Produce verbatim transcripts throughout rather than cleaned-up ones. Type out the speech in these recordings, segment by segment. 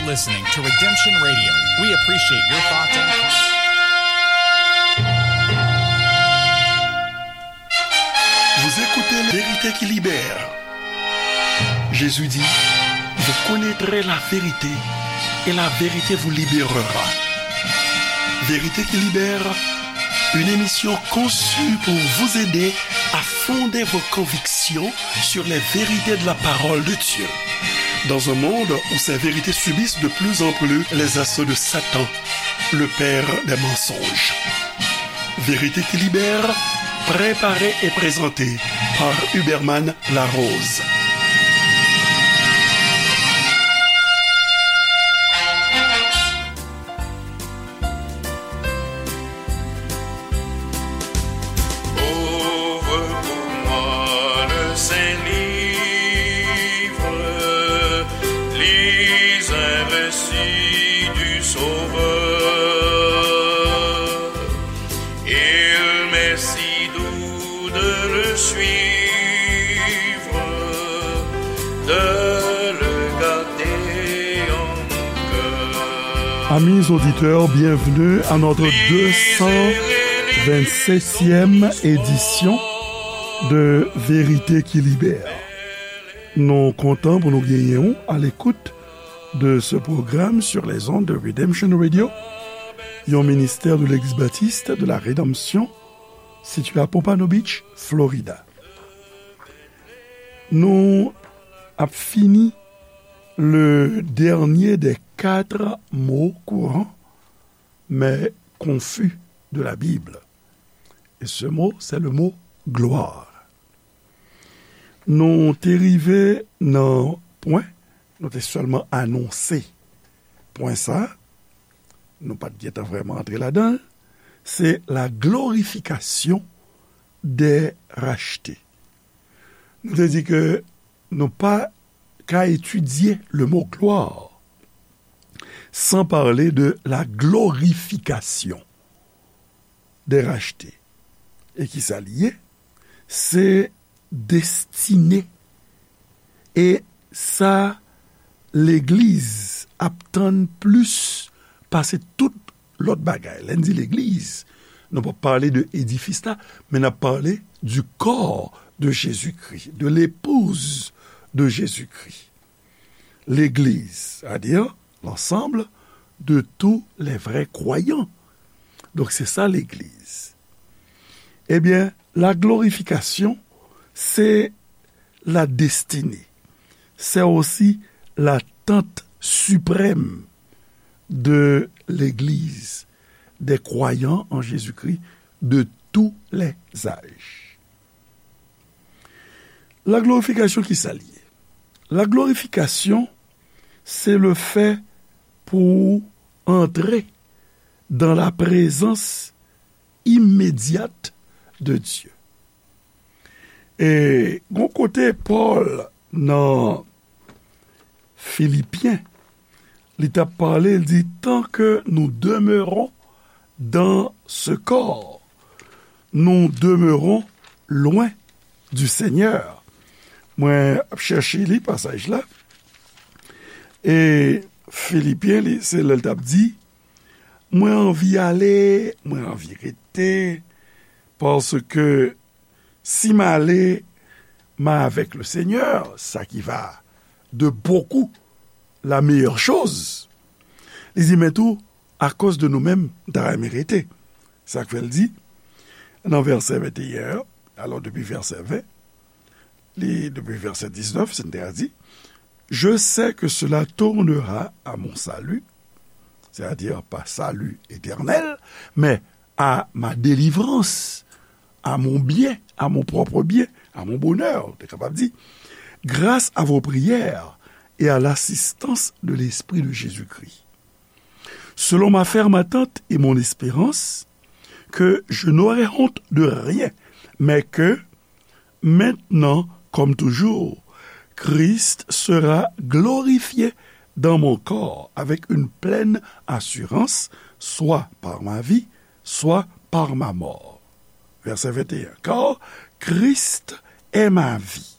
Listening to Redemption Radio. We appreciate your thoughts and comments. Vous écoutez Vérité qui libère. Jésus dit, vous connaîtrez la vérité et la vérité vous libérera. Vérité qui libère, une émission conçue pour vous aider à fonder vos convictions sur les vérités de la parole de Dieu. Dans un monde où ces vérités subissent de plus en plus les assauts de Satan, le père des mensonges. Vérité qui libère, préparée et présentée par Huberman Larose. Ouvre pour moi le saint livre, lis un récit du Sauveur. Il m'est si doux de le suivre, de le garder en mon cœur. Amis auditeurs, bienvenue à notre deux cent vingt-septième édition de Vérité qui Libère. Nou kontan pou nou genyen w à l'écoute de ce programme sur les ondes de Redemption Radio, yon ministère de l'Église baptiste de la Rédemption, situé à Pompano Beach, Florida. Nou ap fini le dernier des quatre mots courants, mais confus de la Bible. Et ce mot, c'est le mot gloire. Nou te rive nan pwen, nou te sèlman anonse pwen sa, nou pa t gentan vrèman antre ladan l, se la glorification des rachetés. Nou te di ke nou pa ka etidye le mot gloire sans parler de la glorification des rachetés. E ki sa li ye? Se destine. E sa legliz ap tann plis pase tout lòt bagay. Lè n di legliz, nou p ap pale de edifis la, men n ap pale du corps de Jésus-Christ, de l'épouse de Jésus-Christ. Legliz, c'est-à-dire l'ensemble de tous les vrais croyants. Donk, se sa legliz. Ebyen, la glorification, c'est la destinée. C'est aussi l'attente suprême de l'Église, des croyants en Jésus-Christ de tous les âges. La glorification, ki sa l ye? La glorification, c'est le fait pour entrer dans la présence immédiate de Dieu. E gon kote Pòl nan Filipyen, li t ap pale, li di, tant que nous demeurons dans ce corps, nous demeurons loin du Seigneur. Mwen ap chèche li pasaj la. E Filipyen, li, se lè l t ap di, mwen anvi ale, mwen anvi rete, paske si m ale, m avèk le Seigneur, sa ki va de beaucoup la meilleure chose. Li di, men tou, akoz de nou menm, m ta renmen rete. Sa k fè l di, nan vèsè venteyen an, alò depi vèsè ven, li, depi vèsè diznèf, se n te a di, je sais que cela tournera à mon salut, c'est-à-dire pas salut éternel, mais à ma délivrance, à mon bien, à mon propre bien, à mon bonheur, ou te kapab di, grâce à vos prières et à l'assistance de l'Esprit de Jésus-Christ. Selon ma ferme attente et mon espérance, que je n'aurai honte de rien, mais que, maintenant comme toujours, Christ sera glorifié dans mon corps avec une pleine assurance, soit par ma vie, soit par ma mort. Verset vingt et un. Car Christ est ma vie,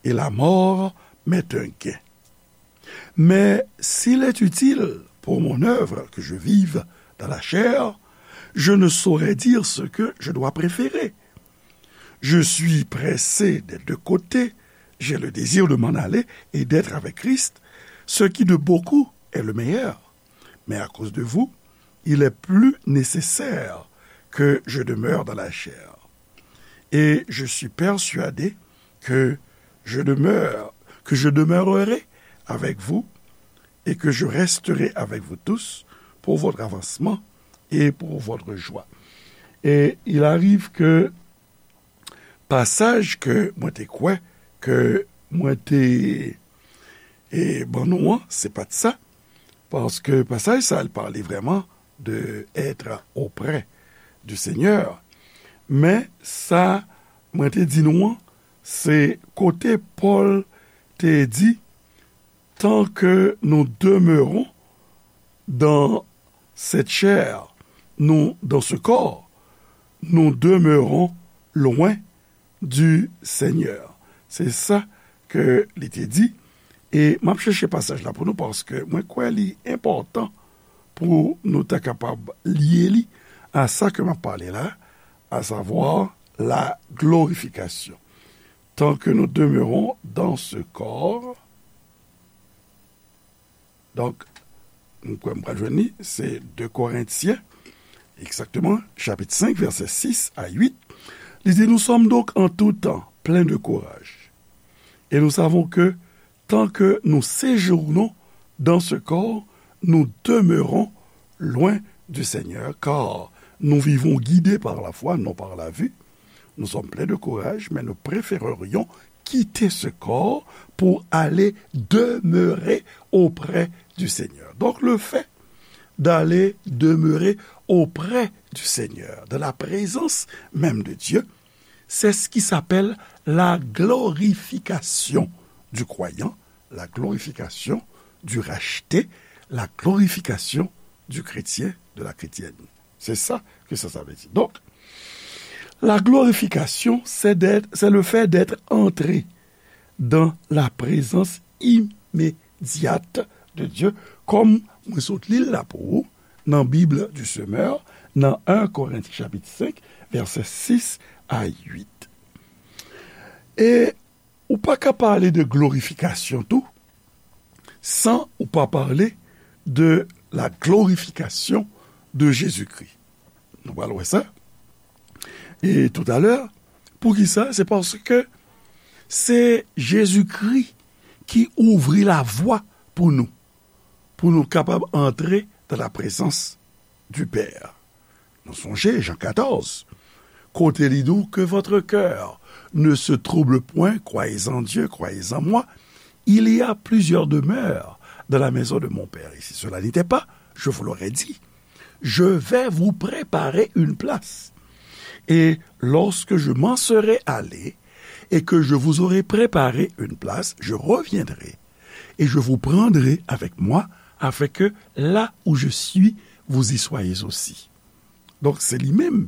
et la mort m'est un gain. Mais s'il est utile pour mon œuvre que je vive dans la chair, je ne saurais dire ce que je dois préférer. Je suis pressé des deux côtés, j'ai le désir de m'en aller et d'être avec Christ, ce qui de beaucoup est le meilleur. Mais à cause de vous, il est plus nécessaire que je demeure dans la chair. Et je suis persuadé que je demeure, que je demeurerai avec vous et que je resterai avec vous tous pour votre avancement et pour votre joie. Et il arrive que pasaj ke mwen te kwè, ke mwen te e, ban nou an, se pa t sa, paske pasaj sa, l pale vrèman de être auprès du Seigneur. Men sa mwen te di nou an, se kote Pòl te di, tant que nous demeurons dans cette chair, nous, dans ce corps, nous demeurons loin du Seigneur. Se sa ke li te di. E m ap chèche pasaj la pou nou paske mwen kwè li enpòtan pou nou ta kapab lye li a sa ke m ap pale la, à savoir la glorification. Tant que nous demeurons dans ce corps, donk, m kwè m pral jwenn li, se de Korentyen, egzakteman, chapit senk, vèsè sis a uit. Li di, nous sommes donc en tout temps pleins de courage. Et nous savons que tant que nous séjournons dans ce corps, nous demeurons loin du Seigneur, car nous vivons guidés par la foi, non par la vue. Nous sommes pleins de courage, mais nous préférerions quitter ce corps pour aller demeurer auprès du Seigneur. Donc le fait d'aller demeurer auprès du Seigneur, dans la présence même de Dieu, c'est ce qui s'appelle la glorification du croyant, la glorification du racheté, la glorification du chrétien, de la chrétienne. C'est ça que ça, ça veut dire. Donc, la glorification, c'est d'être, c'est le fait d'être entré dans la présence immédiate de Dieu, kòm mwen sot li l la pou ou, nan Bible du Semeur, nan un Korentyen chapit senk, vèsè sis a uit. E ou pa ka pale de glorifikasyon tou, san ou pa pale de la glorification de Jésus-Christ. Nou pral wè sa. E toutalè, poukisa? Se paske se Jezikri ki ouvri lavwa pou nou, pou nou kapab antre dans la présence du Père. Nou sonje Jan katòz, kote li di w, que votre cœur ne se trouble point, croyez en Dieu, croyez en moi. Il y a plusieurs demeures dans la maison de mon Père. Et si cela n'était pas, je vous l'aurais dit. Je vais vous préparer une place. Et lorsque je m'en serai allé et que je vous aurai préparé une place, je reviendrai et je vous prendrai avec moi, afin que là où je suis, vous y soyez aussi. Donc, c'est lui-même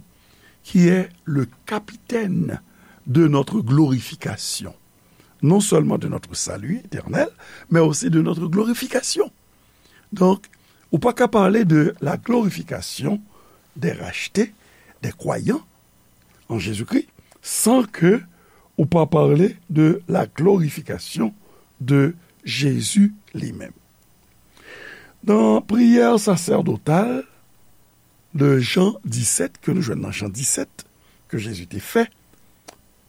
qui est le capitaine de notre glorification. Non seulement de notre salut éternel, mais aussi de notre glorification. Donk, ou pa ka pale de la glorification des rachetés, des croyants en Jésus-Christ, san ke ou pa pale de la glorification de Jésus li menm. Nan priyè sasèdotal de Jan disèt, ke nou jwenn nan Jan disèt, ke Jezi te fè,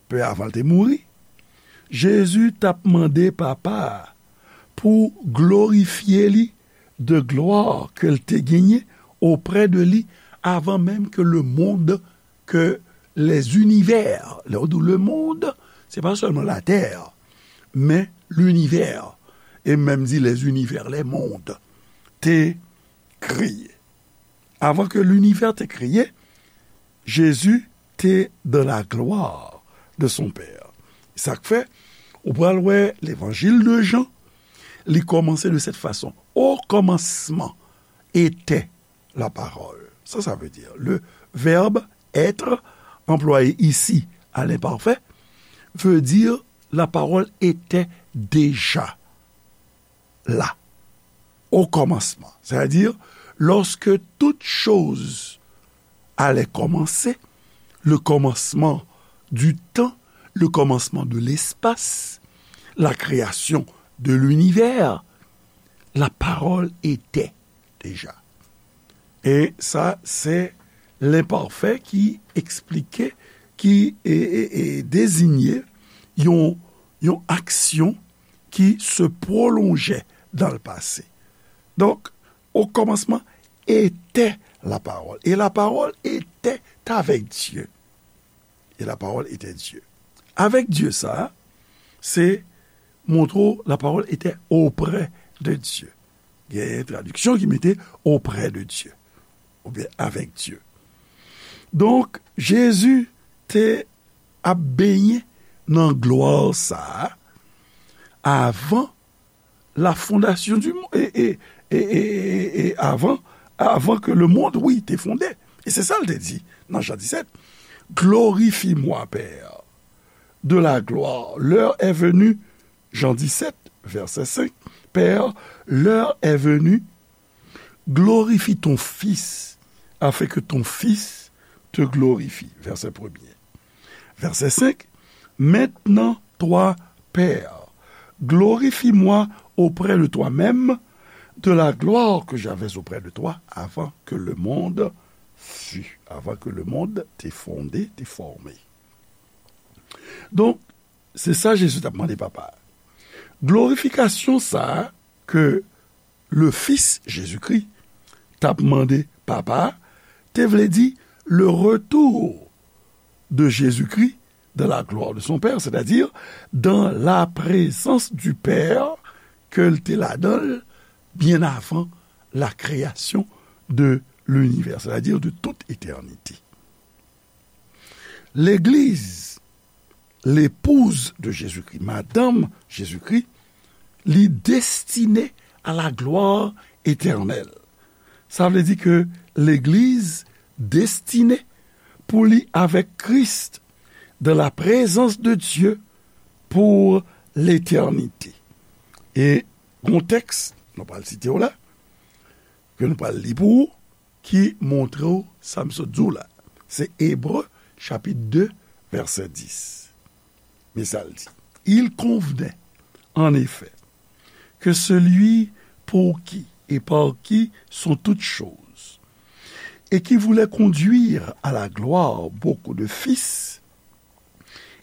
pe avan l te mouri, Jezi t ap mande Papa a pou glorifye li de glwa ke l te genyen oprè de li avan menm ke le monde, ke les univers, lè w di le monde, se pa sèlman latè, men linivè, e menm di les univers, les mondes, te kreye. Avan ke linivè te kreye, Jezi te dans la gloire de son Père. Sa k fè, ou pral wè Levanjil de Jan, li kòmanse de cette façon. Au commencement était la parole. Ça, ça veut dire, le verbe être, employé ici à l'imparfait, veut dire la parole était déjà là, au commencement. C'est-à-dire, lorsque toute chose allait commencer, le commencement du temps, le commencement de l'espace, la création de l'univers, la parole était déjà. E sa, se lenpafè ki eksplike, ki, e, e, e, deziye yon, yon aksyon ki se pwolonje dans le passé. Donk, au commencement était la parole. Et la parole était avec Dieu. Et la parole était Dieu. Avec Dieu, sa, se montre w, la parole était auprès de Dieu. Gen tradiksyon ki mete auprès de Dieu, oubyen avec Dieu. Donk, Jezi te ap benyen nan glwa sa a avan la fondation du monde, e, e, e, e, e, e avan, avan ke le monde, wi, te fonde. E se sa l te di nan Jan disèt, Glorifie-moi, Père, de la gloire. L'heure est venue, Jan disèt, vèsè senk, Père, l'heure est venue, glorifie ton Fils, afin que ton Fils te glorifie. Vèsè premye. Vèsè senk, Maintenant, toi, Père, glorifie-moi auprès de toi-même, de la gloire que j'avais auprès de toi avant que le monde fût, avant que le monde te fondé, te formé. Donk, se sa Jezi t ap mande Papa a. Glorifikasyon sa a ke le Fils Jésus-Christ t ap mande Papa a, te vle di le retour de Jésus-Christ dans la gloire de son Père, c'est-à-dire dans la présence du Père ke l te ladan l byen avan la création de l'univers, c'est-à-dire de toute éternité. Legliz, l'épouse de Jésus-Christ, madanm Jezikri, li destine à la gloire éternelle. Sa vle di ke legliz destine pou li avèk Kris dans la présence de Dieu pour l'éternité. E gon tèks, nou pral site w la, ke nou pral li pou ou, ki montre w sa m sot di w la. Se Ebre, chapit de, vèsè dis. Men sa l di, Il convenait, en effet, que celui pour qui et par qui sont toutes choses, et qui voulait conduire à la gloire beaucoup de fils,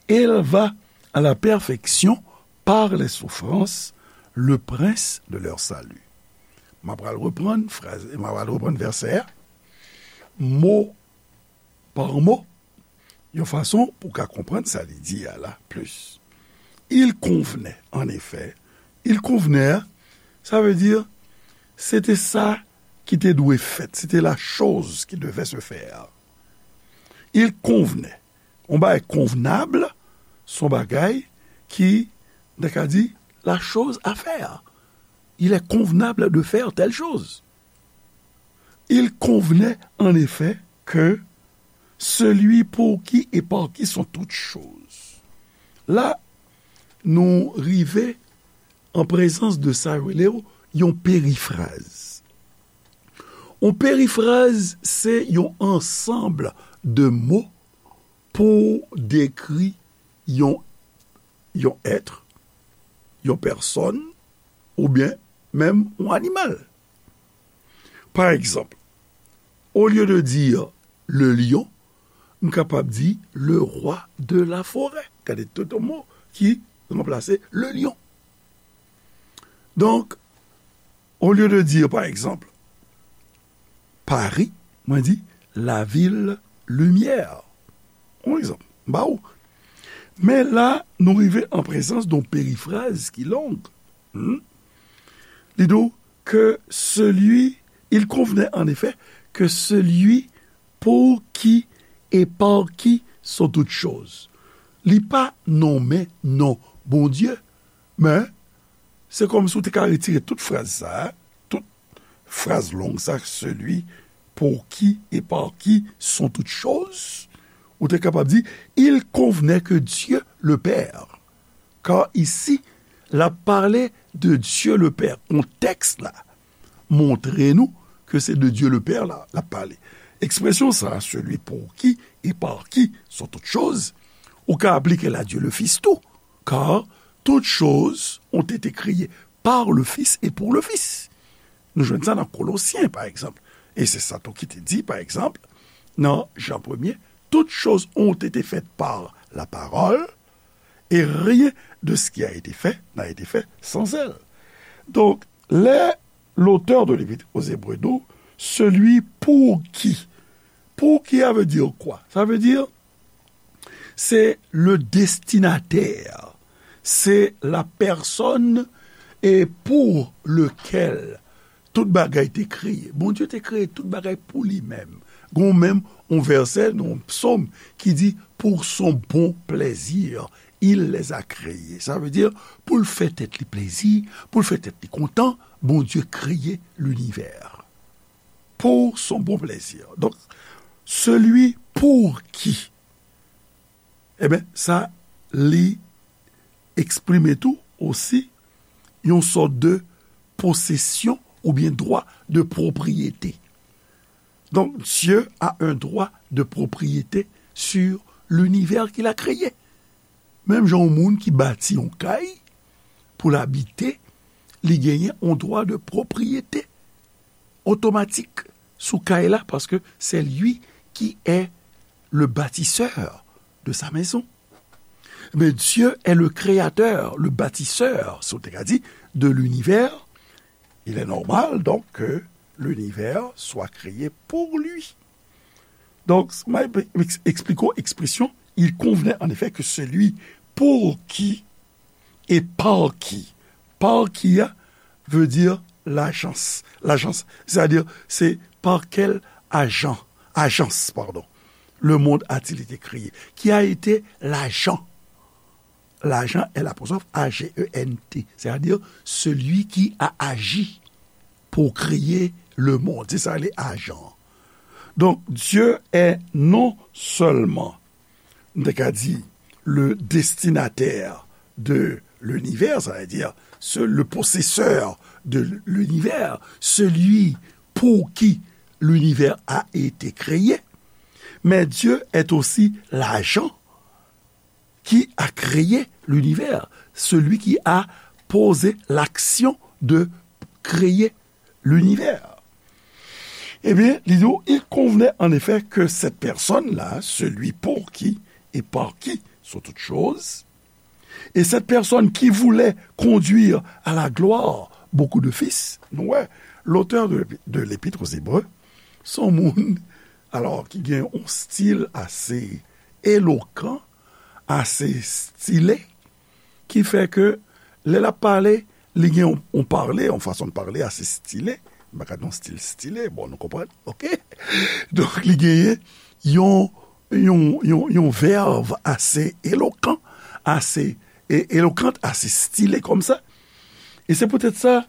éleva à la perfection par les souffrances le prince de leur salut. M ap pral reprann fraz, m ap pral reprann vèsè a, mo pa mo, yon fason pou w ka konprann sa li di a la plis. Il convenait, en effet, il convenait, sa vle di, se te sa ki te dwe fèt, se te la chose qui devait se faire. Il convenait. Yon bagay konvnab, se yon bagay ki, nou ka di, la chose à faire. Il est convenable de faire telle chose. Il convenait en effet que celui pour qui et par qui sont toutes choses. La, nou rive an prezans de sa yo rele yon perifraz. Yon perifraz, se yon ansanm de mo pou dekri yon, yon èt, yon pèsòn, oubyen menm yon animal. Pa egzanp, au lieu de dire le lion, m kapab di le roi de la forêt. Gade tout mo ki ranplase le lion. Donk, au lieu de dire, pa egzanp, Paris, mwen di la ville lumière. Yon egzanp, m ba ou. Men la, nou rive an prezans de yon perifraz ki long. Hmm? Li di w que celui, il convenait en effet que celui pour qui et par qui sont toutes choses. Li pa nonmen non Bondye, men se kòmsi w te ka retire tout fraz sa a, tout fraz long sa, celui pour qui et par qui sont toutes choses, ou te kapab di, il convenait que Dieu le Père, car ici, l ap pale de Dieu le Père. Kontèks la montre nou ke se de Dieu le Père la l ap pale. Ekspresyon sa, celui pour qui et par qui sont toutes choses, ou ka aplike l a Dieu le Fils tou, car toutes choses ont été créées par le Fils et pour le Fils. Nou jwenn sa nan Kolosyen, pa egzanp. E se sa tou ki te di, pa egzanp, nan Jan premye, toutes choses ont été faites par la parole, et rien de ce qui a été fait n'a été fait sans elle. Donk, lè lotè de Lepit o Zebre di w, celui pour qui. Pour qui, ça veut dire quoi? Ça veut dire, c'est le destinataire, c'est la personne et pour lequel tout bagay te kreye. Bondye te kreye tout bagay pou li menm. Gon menm yon vèsè nan yon psòm ki di, pour son bon plaisir, il les a créés. Sa vle di, pou l fè tèt li plezi, pou l fè tèt li kontan, Bondye kreye linivè. Pour son bon plaisir. Donk, celui pour qui. Ebyen, sa, li eksprime tou osi yon sòt de posesyon oubyen dwa de pwopriyete. Donk, Dieu a un droit de propriété sur l'univers qu'il a créé. Menm jan yon moun ki bati yon kay pou l abite, li genyen yon dwa de pwopriyete otomatik sou kay la, paske c'est lui qui est le bâtisseur de sa maison. Mais Dieu est le créateur, le bâtisseur, si w te ka di, de l'univers. Il est normal, donc, que l'univers soit créé pour lui. Donk, mwen eksplike w ekspresyon, il convenait en effet que celui pour qui et par qui. Par qui a veut dire l'agence. L'agence, c'est-à-dire, c'est par quel agent, agence, pardon, le monde a-t-il été créé? Qui a été l'agent? L'agent est l'apostrophe A G E N T, c'est-à-dire celui qui a agi pour créer le monde. Se sa rele ajan. Donk, Dieu est non seulement, nou te ka di, le destinataire de l'univers, ça veut dire ce, le possesseur de l'univers, celui pour qui l'univers a été créé, mais Dieu est aussi l'agent qui a créé l'univers, celui qui a posé l'action de créer l'univers. Eh bien, li di, il convenait en effet que cette personne-là, celui pour qui et par qui sont toutes choses, et cette personne qui voulait conduire à la gloire beaucoup de fils, nou wè, l'auteur de, de l'Épître aux Hébreux, se yon moun, alò, ki gen yon stil ase elokan, ase stile, ki fè ke lè l ap pale, li gen yon, yon pale, yon fason de pale ase stile. M pa ka di yon stil stile, bon, nou konprann, oke? Donk, li genyen yon, yon, yon, yon vèb ase elokan, ase e, elokant, ase stile kòmsa. E se poutèt sa,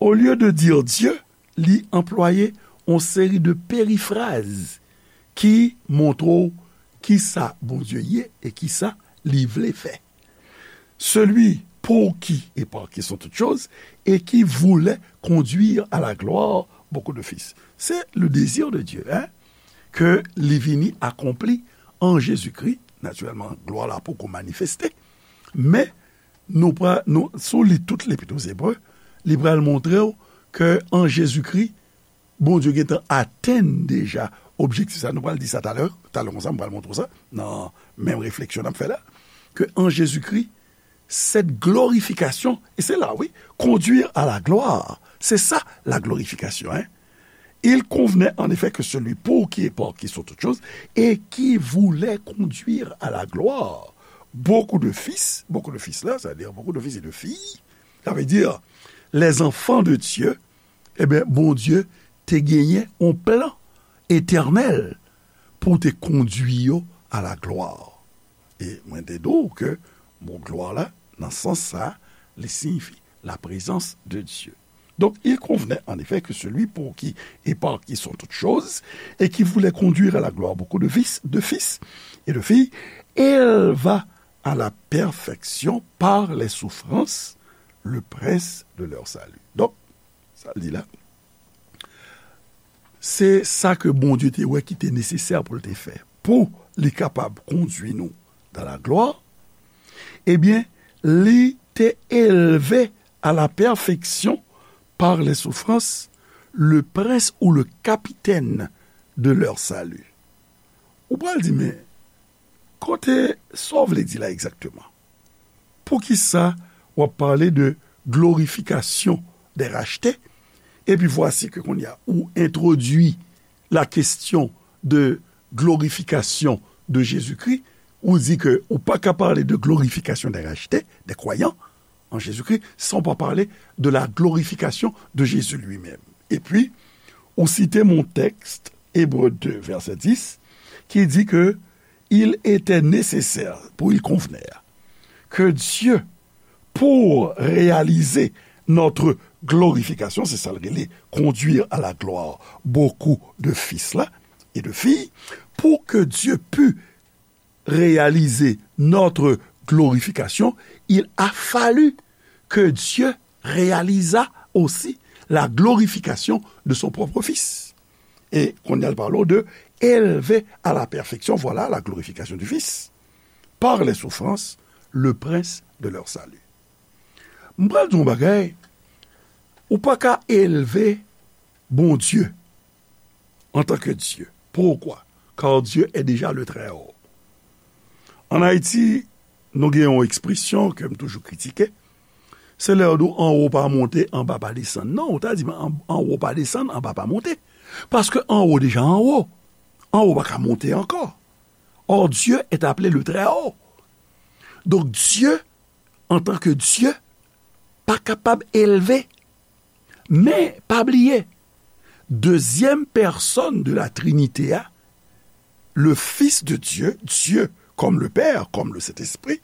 olye de dire Dieu, li anplwaye yon seri de perifraz ki montre w kisa Bondye ye e kisa li vle fè. Celui pour qui et par qui sont toutes choses et qui voulait conduire à la gloire beaucoup de fils. C'est le désir de Dieu, hein, ke li vini akonpli an Jezikri. Natirèlman, glwa la poko manifeste, men nou pral, nou, si w li tout Lepit o Zebre, li pral montre w ke an Jezikri, Bondye gentan atenn deja objektif sa. Nou pral di sa talè, talè konsa, m pral montre w sa, nan menm refleksyon n ap fè la, ke an Jezikri, cette glorification, et c'est là, oui, conduire à la gloire, c'est ça la glorification, hein. Il convenait en effet que celui pour qui et par qui sont toutes choses et qui voulait conduire à la gloire beaucoup de fils, beaucoup de fils la, c'est-à-dire beaucoup de fils et de filles, ça veut dire les enfants de Dieu, ebyen, Bondye te genyen yon plan etènèl pou te kondui yo a la glwa. E mwen te di w ke mo glwa la, nan sans sa, li siyifi la présence de Dieu. Donc, il convenait en effet que celui pour qui et par qui sont toutes choses, et qui voulait conduire à la gloire beaucoup de fils, de fils et de filles, éleva à la perfection par les souffrances le prince de leur salut. Donk, sa l di la, se sa ke Bondye te wè ki te nesesè pou l te fè, pou li kapab kondui nou dans la gloire, ebyen, li te elve à la perfection par les souffrances le prince ou le capitaine de leur salut. Ou pral di, men, kote sa w vle di la egzakteman? Poukisa w ap pale de glorifikasyon dè rachte? Epi vwasi ke kounye a, ou entwodui la kesyon de glorifikasyon de Jezikri, ou di ke ou pa ka pale de glorifikasyon dè rachte, dè kwayan an Jezikri, san w pa pale de la glorifikasyon de Jezi li menm. Epi, ou site mon tèks, Ebre de, vèsè dis, ki di ke il était nécessaire, pou il convenait, que Dieu, pour réaliser notre glorification, se sa l rele conduire à la gloire beaucoup de fils la, et de filles, pour que Dieu pût réaliser notre glorification, il a fallu que Dieu réalisa aussi la glorification de son propre Fils. E kounye a l pale w de élevé à la perfection, voilà la glorification du Fils, par les souffrances, le prince de leur salut. M pral di w yon bagay, ou pa ka elve Bondye antanke Dye. Poukwa? Car Dieu est déjà le Très-Haut. Ann Ayiti, nou gen yon ekspresyon ke m toujou kritike, se lè yo di w anwo pa monte, anba pa desann. Non, ou ta di m an-, anwo pa desann, anba pa monte. Paske anwo deja anwo. Anwo pa ka monte ankò. Or, Dieu est appelé le Très-Haut. Donk, Dye, antanke Dye, pa kapab elve. Men, pa bliye, dezyèm pèsòn de la Trinité a, le Fils de Dieu, Dieu comme le Père, comme le Saint-Esprit,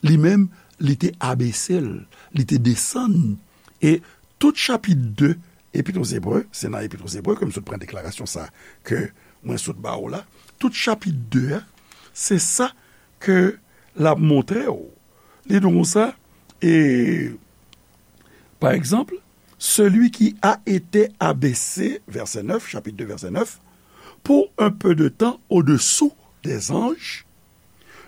li menm, li te abese l, li te desann. E tout chapit de Epit aux Hébreux, se nan Epit aux Hébreux ke m sot pran deklarasyon sa ke mwen sot ba w la. Tout chapit de a, se sa ke l ap montre w. Li di w konsa, e, pa egzanp, celui qui a été abaissé, verset neuf, chapitre deux, verset neuf, pour un peu de temps au-dessous des anges,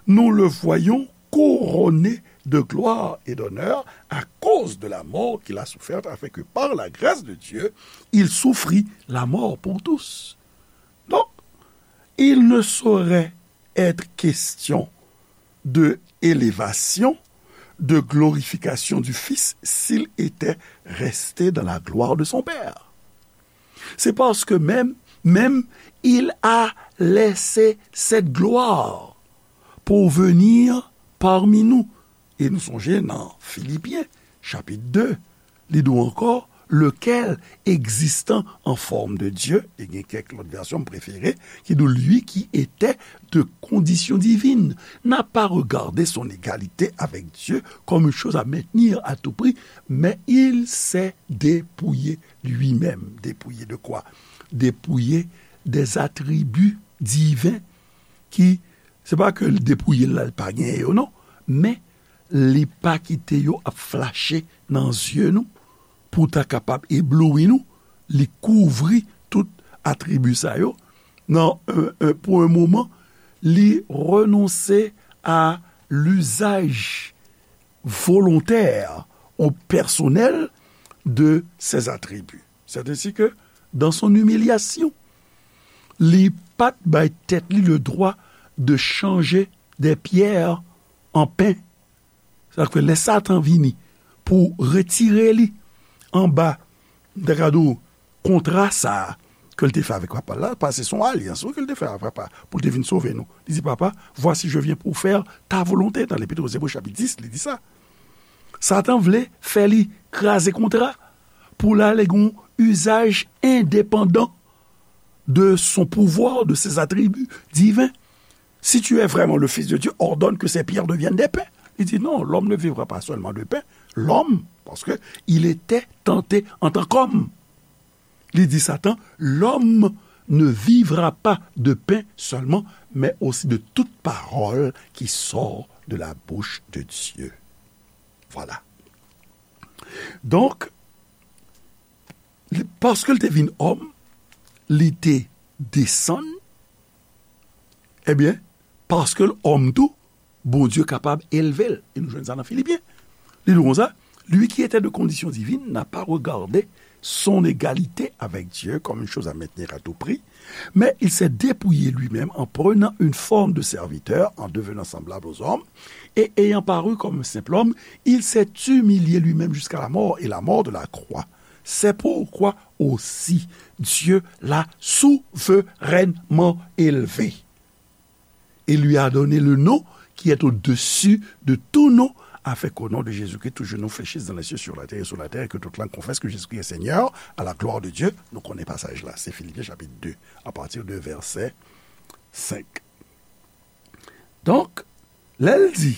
nous le voyons couronné de gloire et d'honneur à cause de la mort qu'il a soufferte, afin que par la grâce de Dieu, il souffrit la mort pour tous. Donc, il ne saurait être question de élévation, de glorification du Fils s'il était resté dans la gloire de son Père. C'est parce que même, même il a laissé cette gloire pour venir parmi nous. E nou sonje nan Filipyen, chapit de, li di w ankò, lequel, existant en forme de Dieu, e gen kèk lòt vèsyon m prefere, ki di w, lui qui était de condition divine, n'a pas regardé son égalité avec Dieu comme une chose à maintenir à tout prix, mais il s'est dépouillé lui-même. Dépouillé de quoi? Dépouillé des attributs divins ki, se pa ke l depouye l la, l pa genyen yo, non. Men, li pa kite yo ap flache nan zye nou, pou ta kapab ebloui nou, li kouvri tout atribi sa yo. Nan, euh, euh, pour un moment, li renonse à l'usage volontaire ou personnel de ses attributs. C'est ainsi que, dans son humiliation, li pa t bay tèt li le droit de changer des pierres en pain. Sa k fè lè Satan vini pou retire li anba, m ta ka di w, kontra sa a ke l te fè avèk Papa l la, paske se yon alyans, wi, ke l te fè avèk Papa, pou l te vin sove nou. Li di, Papa, voici, je viens pour faire ta volonté, nan Lepit aux Hébreux, chapit dis, li di sa. Satan vle fè li kraze kontra pou l ale gen yon usage indépendant de son pouvoir, de ses attributs divins. Si tu es vraiment le Fils de Dieu, ordonne que ces pierres deviennent des pains. Li di, non, l'homme ne vivra pas seulement de pain. L'homme, parce que il était tenté en tant qu'homme. Li di Satan, l'homme ne vivra pas de pain seulement, mais aussi de toute parole qui sort de la bouche de Dieu. Voilà. Donk, li, paske l te vin òm, li te desann, ebyen, paske l òm tou, Bondye kapab elve l. E nou jwenn sa nan Filipyen. Li di konsa, Lui qui était de condition divine n'a pas regardé son égalité avec Dieu comme une chose à maintenir à tout prix, mais il s'est dépouillé lui-même en prenant une forme de serviteur, en devenant semblable aux hommes, et ayant paru comme un simple homme, il s'est humilié lui-même jusqu'à la mort, et la mort de la croix. C'est pourquoi aussi Dieu l'a souverainement élevé et lui a donné le nom qui est au-dessus de tout nom, afin qu'au nom de Jésus-Christ, tout genou fléchisse dans les cieux, sur la terre et sous la terre, et que toute langue confesse que Jésus-Christ est Seigneur, à la gloire de Dieu. Nou konnen pasaj la, se Filipyen chapit de, apati de vèsè senk. Donk, lè l di,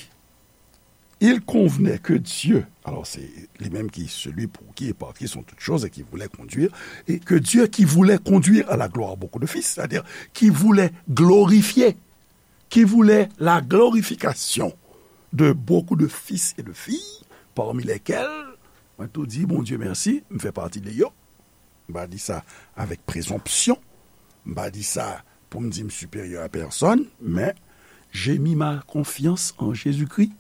Il convenait que Dieu, alors c'est lui-même qui, celui pour qui et par qui sont toutes choses et qui voulait conduire, et que Dieu qui voulait conduire à la gloire beaucoup de fils, c'est-à-dire qui voulait glorifier, qui voulait la glorification de beaucoup de fils et de filles, parmi lesquels, mwen tou di Bondye mèsi, m fè pati de yo. M pa di sa avèk prezonpsyon. M pa di sa pou m di m siperyè a pèsonn, men j'ai mis ma confiance en Jésus-Christ.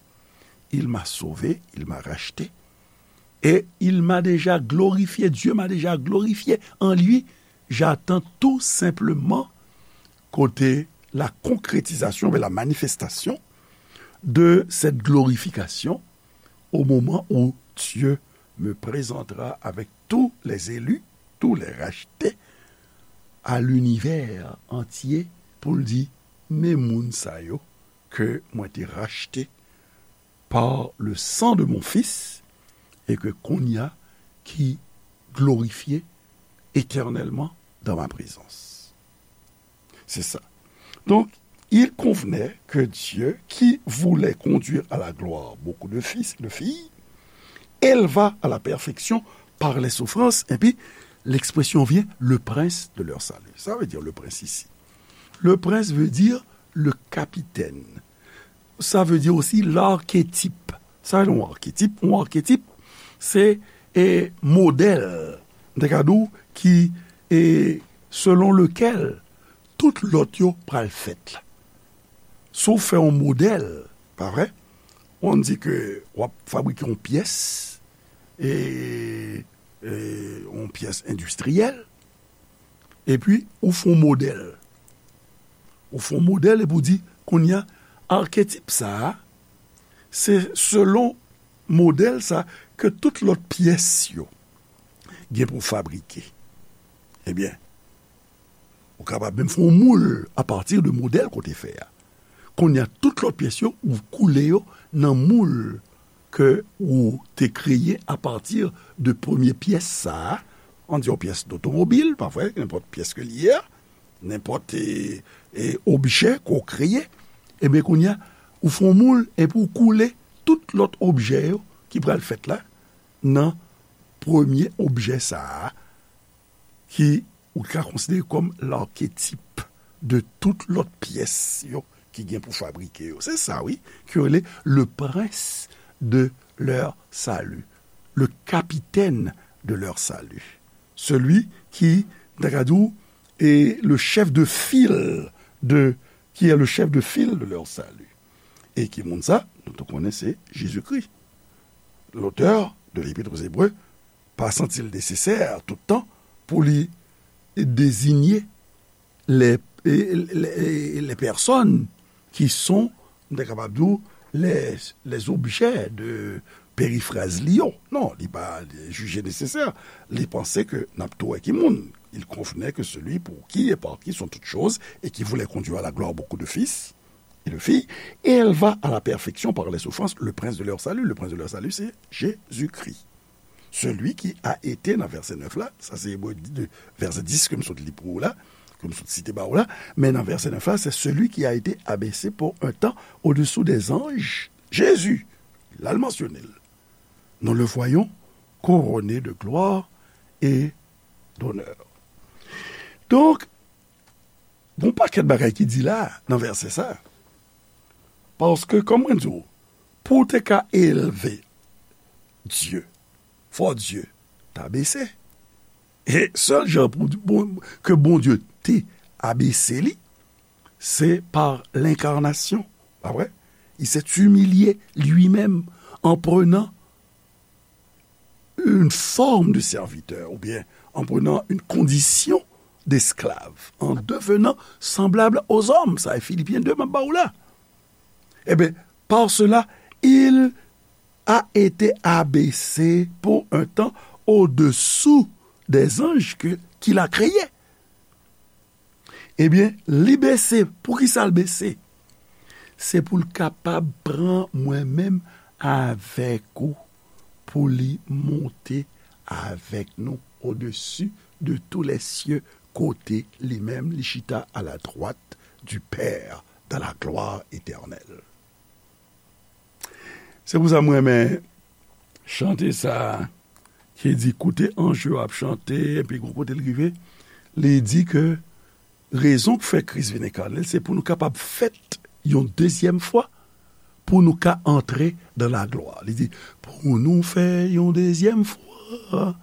Il m'a sauvé, il m'a racheté. Et il m'a déjà glorifié, Dieu m'a déjà glorifié en lui. J'attends tout simplement kote la concrétisation, la manifestation de cette glorification au moment où Dieu me présentera avec tous les élus, tous les rachetés, à l'univers entier, pou l di, men moun sa yo ke mwen te rachte par le sang de mon Fils, et que kounye a ki glorifye éternellement dans ma présence. C'est ça. Donc, il convenait que Dieu, qui voulait conduire à la gloire beaucoup de fils et de filles, éleva à la perfection par les souffrances, et puis l'expression vient, le prince de leur salut. Ça veut dire le prince ici. Le prince veut dire le capitaine. Ça veut dire aussi l'archétype. Sa se yon aketip. Yon aketip, se e, modèl, m te ka di w, ki e, selon lekel tout lòt yo pral fèt la. Si w fè yon modèl, pa vre? On di ke w ap fabrike yon pyès, e, e, yon pyès endistriyèl, epi ou fè yon modèl. Ou fè yon modèl epi w di, kounye a, aketip sa a, se selon modèl sa ke tout lòt pyès yo gen pou fabrike. Ebyen, ou kapab menm fè yon moul apati de modèl ke w te fè a. Kounye a, tout lòt pyès yo, ou koule yo nan moul ke ou te kreye apati de premye pyès sa a. Ann di yon pyès dotomobil, pa vre, nenpòt pyès ke li ye a, nenpòt e, e, objè ke w kreye. Ebyen, kounye a, ou fè yon moul epi w koule tout lòt objè yo ki pral fèt la nan premye objè sa a, ki ou ka konsidere kòm laketip de tout lòt pyès yo ki gen pou fabrike yo. Se sa, wi, ki rele le prince de leur salut, le capitaine de leur salut, celui qui, m ta ka di w, est le chef de file de, qui est le chef de file de leur salut. E ki moun sa? Nou tou konnen se Jezikri, l'auteur de l'Épître aux Hébreux, pa santi l nesesè tout tan pou li deziye les, les, les personnes qui sont, m ta kapab di w, les, les objets de perifraz li yo. Non, li pa jije nesesè. Li panse ke n ap tou wè ki moun. Il convenait que celui pour qui et par qui sont toutes choses et qui voulait conduire à la gloire beaucoup de fils et de filles, éleva à la perfection par les souffrances le prince de leur salut. Le prince de leur salut, c'est Jésus-Christ. Celui qui a été, nan vèsè nèf la, sa se Ebre de, vèsè dis ke m sot li pou ou la, ke m sot site ba ou la, men nan vèsè nèf la, c'est celui qui a été abaissé pour un temps au-dessous des anges, Jésus, l al mansyone l. Nous le voyons couronné de gloire et d'honneur. Donk, gon pakèt bagay ki di la nan vèsè sa. Paske, kòm mwen di w, pou w te ka elve Dye, fò Dye ta bese. E sèl jan pou bon, ke Bondye te abese li, se pa lenkarnasyon. Pa vre? Il s'est humilié lui-même en prenant une forme de serviteur, oubyen en prenant une condition d'esclave, en devenant semblable aux hommes. Sa e Filipyen de m ap ba w la. Ebyen, par cela, il a été abaissé pour un temps au-dessous des anges que, qu'il a créés. Ebyen, li bese. Poukisa l bese? Se pou l kapab pran mwen menm avèk ou, pou li monte avèk nou au-dessus de tous les cieux, kote li menm li chita à la droite du Père dans la gloire éternelle. Se pou sa m renmen chante sa a ki di, koute anj yo ap chante, epi gwo kote l rive, li di ke rezon k fè Kris vin enkarne l, se pou nou kapab fèt yon dezyèm fwa, pou nou ka antre dans la gloire. Li di, pou nou fè yon dezyèm fwa,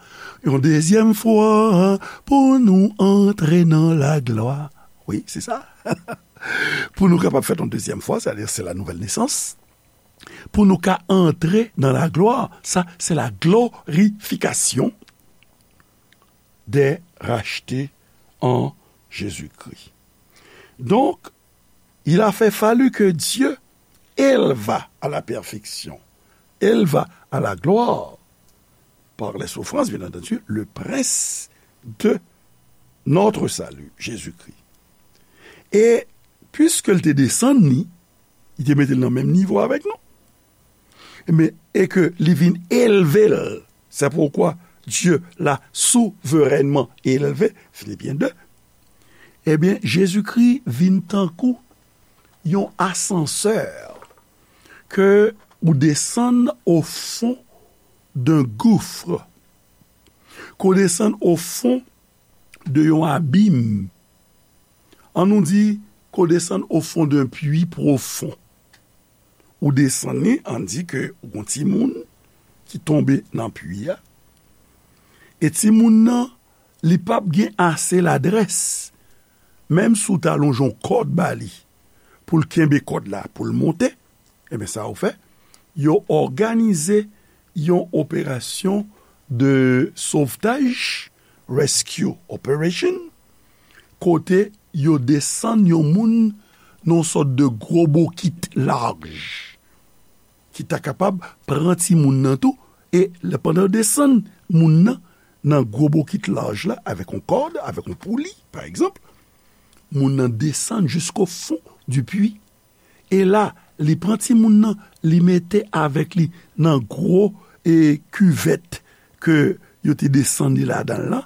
yon dezyèm fwa, pou nou antre dans la gloire. Wi, se sa. Pou nou kapab fèt yon dezyèm fwa, c'est-à-dire c'est la nouvelle naissance. Pou nou ka antre dans la gloire, sa, se la glorification des rachetés en Jésus-Christ. Donc, il a fait fallu que Dieu éleva à la perfection, éleva à la gloire, par les souffrances, bien entendu, le prince de notre salut, Jésus-Christ. E piske l te desann li, li te mete l nan menm nivo avèk nou. Men, e ke li vin elve l. C'est pourquoi Dieu l'a souverainement élevé, Philippiens deux. Ebyen, Jezikri vin tankou yon asansè ke ou desann au fond d'un gouffre, ke w desann au fond de yon abim. An nou di ke w desann au fond d'un puits profond. Ou desann li, ann di ke ou gon timoun ki tonbe nan pwi a, e timoun nan, li p ap gen ase ladrès, menm si w ta lonje yon kòd ba li, pou l kenbe kòd la, pou l monte, ebyen, sa yo fè, yo òganize yon operasyon de sovtaj, rescue operation, kote yo desann yon moun nan yon sòt de gwo bokit laj, ki ta kapab pran timoun nan tou, e lè, pandan yo desann moun nan, nan gwo bokit laj la, avèk yon kòd, avèk yon pouli, pa egzanp, moun nan desann jusqu'au fond du puits. E la, li pran timoun nan, li mete avèk li nan gwo, e, kivèt ke yo te desann li ladan l lan,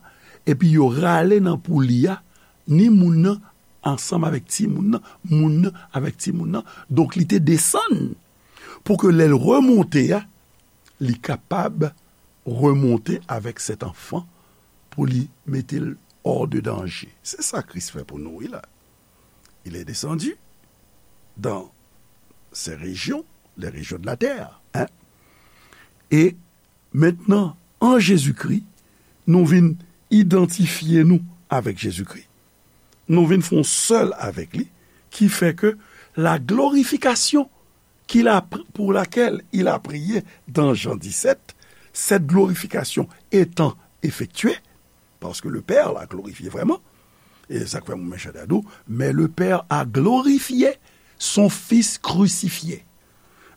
epi yo rale nan pouli a, ni moun nan ansanm avèk timoun nan, moun nan avèk timoun nan. Donk, li te desann pou ke lè l remonte a, li kapab remonte avèk cet enfant pou li mete l hors de danger. Se sa Kris fè pou nou, wi, la. Il est descendu dans ces régions, les régions de la terre, hein. E mentnan, an Jezikri, nou vin idantifye nou avèk Jezikri. Nou vin fè yon sèl avèk li, ki fè ke la glorification qu'il a, pour laquelle il a prié dans Jean dix-sept, cette glorification étant effectuée, parce que le Père l'a glorifié vraiment, e sa k fè mwen chante a di w, mais le Père a glorifié son Fils crucifié.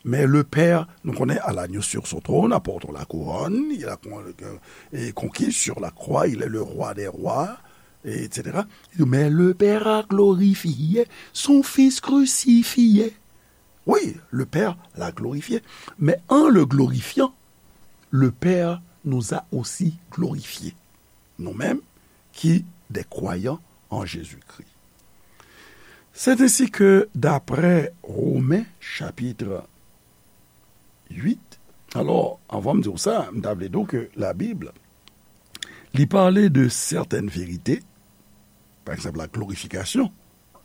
Mais le Père, nou konnen, à l'agneau sur son trône, apportons la couronne, il a con-, euh, et conquis sur la croix, il est le roi des rois, et cetera. Mais le Père a glorifié son Fils crucifié. Oui, le Père l'a glorifié. Mais en le glorifiant, le Père nous a aussi glorifiés. Nous-mêmes, qui des croyants en Jésus-Christ. C'est ainsi que, d'après Romains chapitre huit, alò, anvan m di w sa, m ta vle di w ke Labib, li pale de certaines vérités, par exemple, la glorification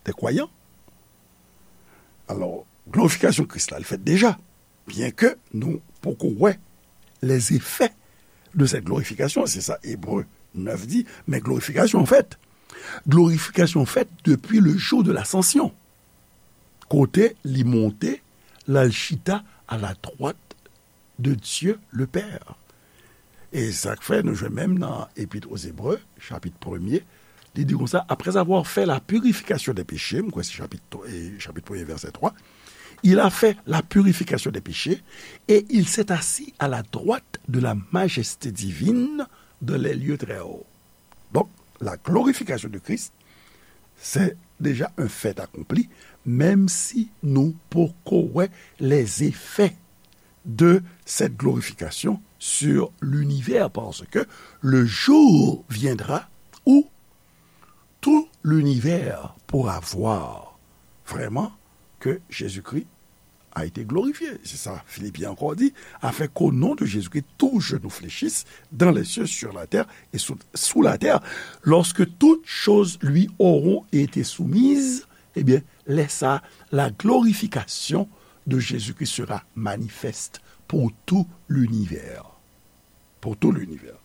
des croyants. Alò, glorifikasyon Kris la, li fèt deja, byen ke nou poko wè les effets de cette glorification, c'est ça Hébreu neuf dit, mais glorification en fait, glorification faite depuis le jour de l'ascension, kote li monte, l al chita à la droite de Dieu le Père. E sa k fè nou jwenn menm nan Epître aux Hébreux, chapit premye, li di konsa, après avoir fait la purification des péchés, m kwè se chapit, e, chapit premye, vèsè twa, il a fait la purification des péchés et il s'est assis à la droite de la majesté divine dans les lieux très hauts. Donk, la glorification de Christ, c'est déjà un fait accompli, menm si nou poko wè les effets de cette glorification sur l'univers, parce que le jour viendra où tout l'univers pourra voir vraiment que Jésus-Christ a été glorifié. C'est ça, Philippiens encore dit, afin qu'au nom de Jésus-Christ, tout genou fléchisse dans les cieux, sur la terre et sous, sous la terre. Lorsque toutes choses lui auront été soumises, eh bien, lè sa, la glorification de Jésus-Christ sera manifeste pour tout l'univers. Pour tout l'univers.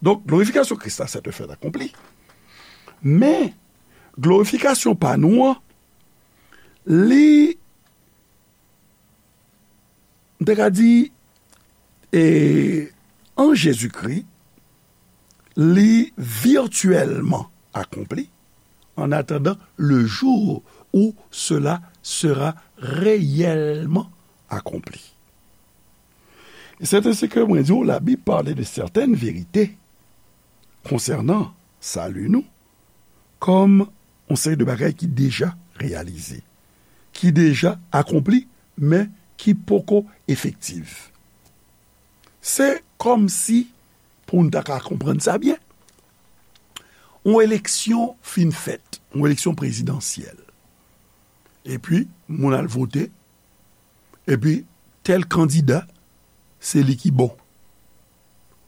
Donk, glorifikasyon Kris la, c'est un fait accompli. Men, glorifikasyon pa nou an, li, m te ka di, e, an Jezikri, li virtuellement accompli, en attendant le jour où cela sera réellement accompli. E c'est ainsi que mwen di w, Labib pale de certaines vérités concernant sali nou kòm yon seri de bagay ki deja reyalize, ki deja akonpli, men ki poko efektif. Se kòmsi, pou n ta ka konprann sa byen, yon eleksyon fin fèt, yon eleksyon prezidansyèl. Epi, moun al vote, epi tèl kandida, se li ki bon.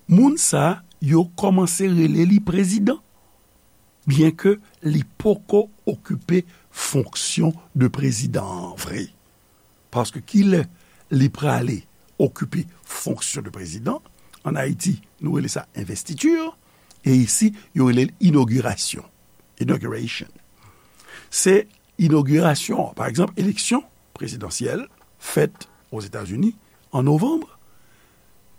Moun sa a, yo kòmanse rele li prezidan, byenke li poko okipe fonksyon de prezidan an vre. Paske kilè li prale okipe fonksyon de prezidan? An Ayiti, nou rele sa envestiti, e isi, yo rele l inogirasyon. Inauguration. Se inogirasyon, pa egzanp, eleksyon prezidansyèl fèt Ozetazini an novanm,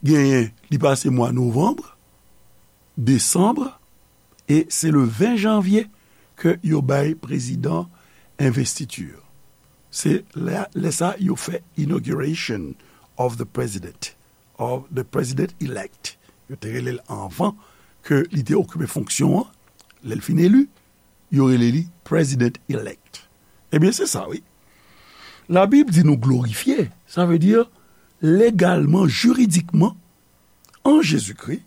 genyen, li pase mwa novanm, desanm, e se le ven janvye ke yo bay prezidan envestiti. Se lè, lè sa yo fè inauguration of the president, of the president elect. Yo te rele l anvan ke li te okipe fonksyon an, lè l fin eli, yo rele li president elect. Ebyen, se sa, wi. Labib di nou glorifye, sa vle di legalman, jiridikman, an Jezikri,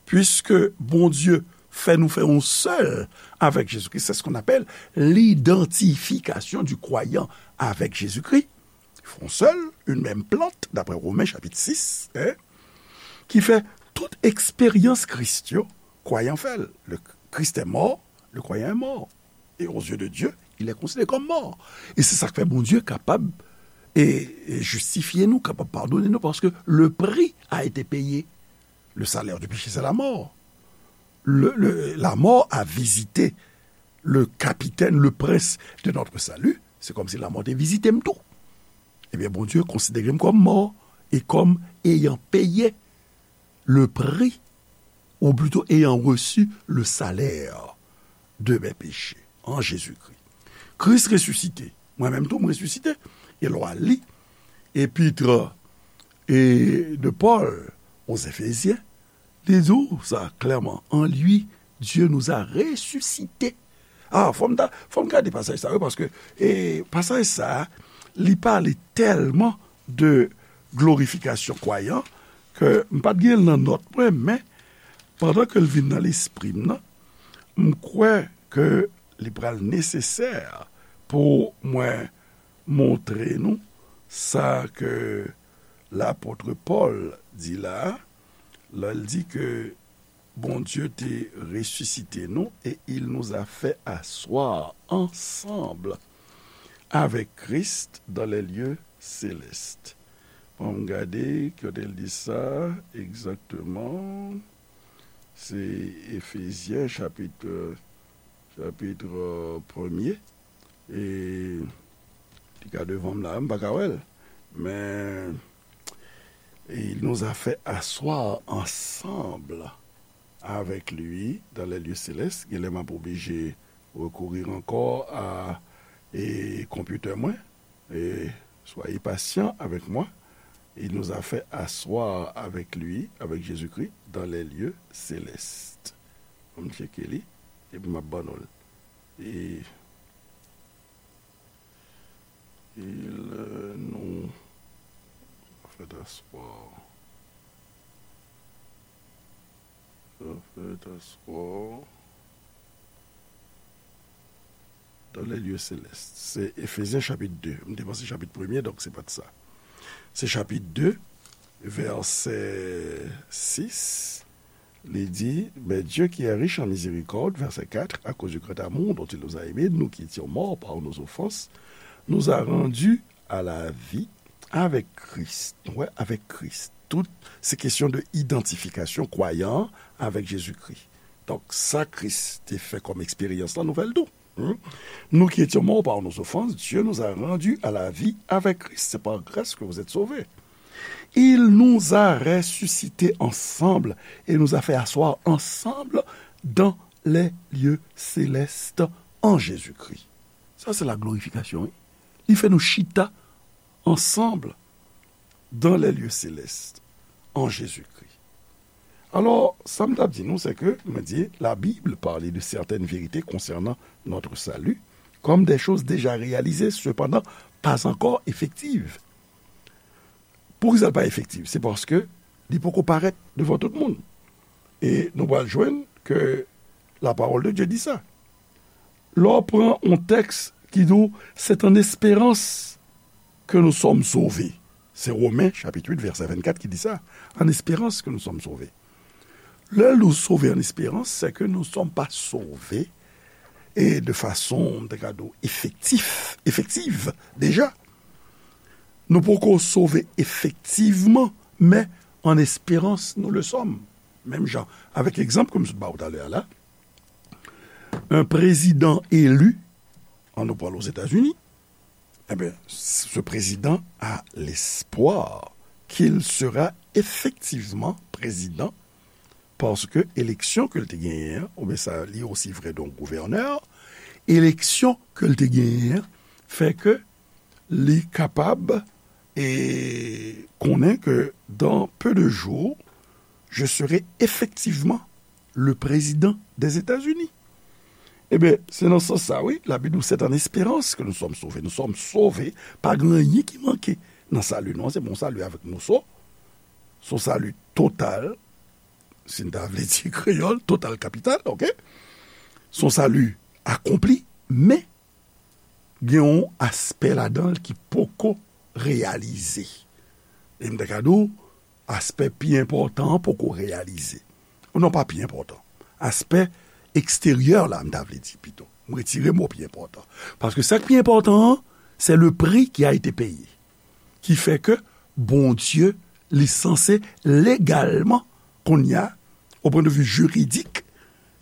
puiske Bondye fè nou fè yon sèl avèk Jezikri. C'est ce qu'on appelle l'identification du croyant avec Jésus-Christ. Ils font seul une même plante, d'après Romains chapitre six, hein, qui fait toute expérience Christ, yo, croyant fait. Le Christ est mort, le croyant est mort. Et aux yeux de Dieu, il est considéré comme mort. E se sa k fè Bondye kapab e, e jistifye nou, kapab padone nou, paske le prix a été payé. Le salaire du péché, c'est la mort. Le, le, la mort a visité le capitaine, le prince de notre salut. Se kòmsi lanmò te vizite m tou. Ebyen, Bondye konsidere m kòm mò e kòm ayant payé le prix, ou plutôt ayant reçu le salaire de mes péchés en Jésus-Christ. Kris resisite. Mwen menm tou, m resisite. E lè w al li epit e de Paul aux Éphésiens, li di w sa klèman, en lui, Dieu nous a ressuscités. Ah, fò m ta, fò m gade pasaj sa, wi, paske, e, pasaj sa, li pale tèlman de glorifikasyon kwayan ke m pa t gen l nan nòt mwen, men pandan ke l vin nan lespri m nan, m kwè ke li pral nesesè pou mwen montre nou sa ke lapot Pòl di la, lè l di ke Bondye te resisite nou et il nous a fait asseoir ensemble avec Christ dans les lieux célestes. Ann gade, kote l di sa egzakteman. Se Efezyen, chapit, chapit premye. E li ka devan m la, m pa ka wè l. Men, et il nous a fait asseoir ensemble avec lui dans les lieux célestes. Genlè m ap oblije rekourir ankò a e, konpitè mwen. Et soyez patients avec moi. Il nous a fait asseoir avec lui, avec Jésus-Christ, dans les lieux célestes. Ann tcheke li, epi m ap ban nou l. Et il nous a fait asseoir. Fait asseoir dans les lieux célestes. Se Efezyen chapit de. M te panse chapit premye, donk se pa t sa. Se chapit de, vèsè sis. Li di, mais Dieu qui est riche en miséricorde, verset quatre, à cause du grand amour dont il nous a aimés, nous qui étions morts par nos offenses, nous a rendus à la vie avec Christ. Nou wè, avec Christ. Tout se kesyon de idantifikasyon kwayan an avèk Jezikri. Donk, sa Kris te fè kòm eksperyans lan, nou fè l tou. Hmm? Nous qui étions morts par nos offenses, Dieu nous a rendus à la vie avec Christ. C'est par grâce que vous êtes sauvés. Il nous a ressuscités ensemble et nous a fait asseoir ensemble dans les lieux célestes en Jésus-Christ. Sa se la glorifikasyon, wi. Li fè nou chita ansanm dans les lieux célestes en Jésus-Christ. Alò, sa m t ap di nou, se ke, mwen di, la Bible parle de certaines vérités concernant notre salut comme des choses déjà réalisées, cependant pas encore effectives. Poukisa l pa efektiv? Se paske li poko parèt devan tout moun. E nou pral jwenn ke la parole de Dieu di sa. Lè w pran yon tèks ki di w, c'est en espérance que nous sommes sauvés. Se Women, chapit uit, vèsè vennkat ki di sa. En espérance que nous sommes sauvés. Lè nou sove an esperans, se ke nou sòm pa sove e de fason, m te ka di w, efektif, efektiv, deja. Nou poko sove efektivman, men an esperans nou le sòm. Menm jan, avèk egzanp ke m sot ba w talè a la, un président élu, an nou pral Ozetazini, eh bien, ce président a l'espoir qu'il sera effectivement président, paske eleksyon ke l te genyen an, oubyen sa li osi vre de yon gouvènè, eleksyon ke l te genyen an fè ke li kapab e konnen ke dans peu de jours, je serai effectivement le président des États-Unis. Ebyen, se nan sans sa, wi, Labib di w, c'est en espérance que nous sommes sauvés. Nou sòm sove, pa gen anyen ki manke nan sali nou an, se bon sali avèk moso, se yon sali total, si n ta vle di kreyòl, total kapital, oke? Se yon sali akonpli, men gen yon aspè ladan l ki poko reyalize. E m ta ka di w, aspè pi enpòtan an poko reyalize. Non, pa pi enpòtan. Aspè eksteryè la, m ta vle di pito. M retire mo pi enpòtan. Paske sa k pi enpòtan an, c'est le prix qui a été payé. Ki fè ke Bondye, li sanse legalman, kounye a, au point de vue juridik,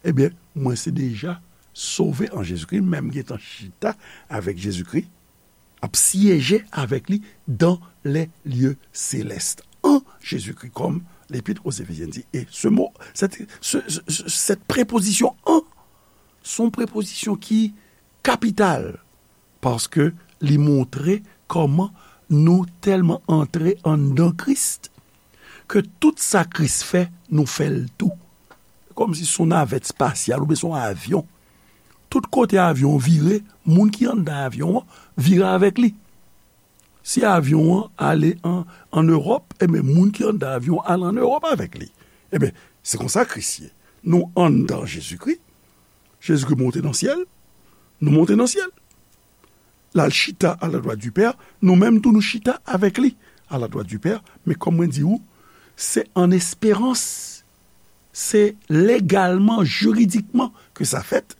ebyen, mwen se deja sove an Jezikri, menm gentan chita avèk Jezikri, ap syeje avèk li dans les lieux célestes, en Jésus-Christ, comme l'Épître aux Éphésiens dit. E se mo, cette, ce, ce, ce, cette préposition en, se yon prepozisyon ki kapital, paske li montre kòman nou tèlman antre anndan Kris, ke tout sa Kris fè, nou fè l tou. Kòmsi se yon navèt espasyal oubyen se yon avyon. Tout kote avyon an vire, moun ki anndan avyon an vire avèk li. Si avyon an ale an, an Ewòp, ebyen, moun ki anndan avyon an ale an Ewòp avèk li. Ebyen, se konsa Kris ye. Nou anndan Jezikri, Jezikri monte nan syèl, nou monte nan syèl. L al chita à la droite du Père, nou menm tou nou chita avèk li à la droite du Père, men kòm mwen di w, se an esperans, se legalman, jiridikman ke sa fèt.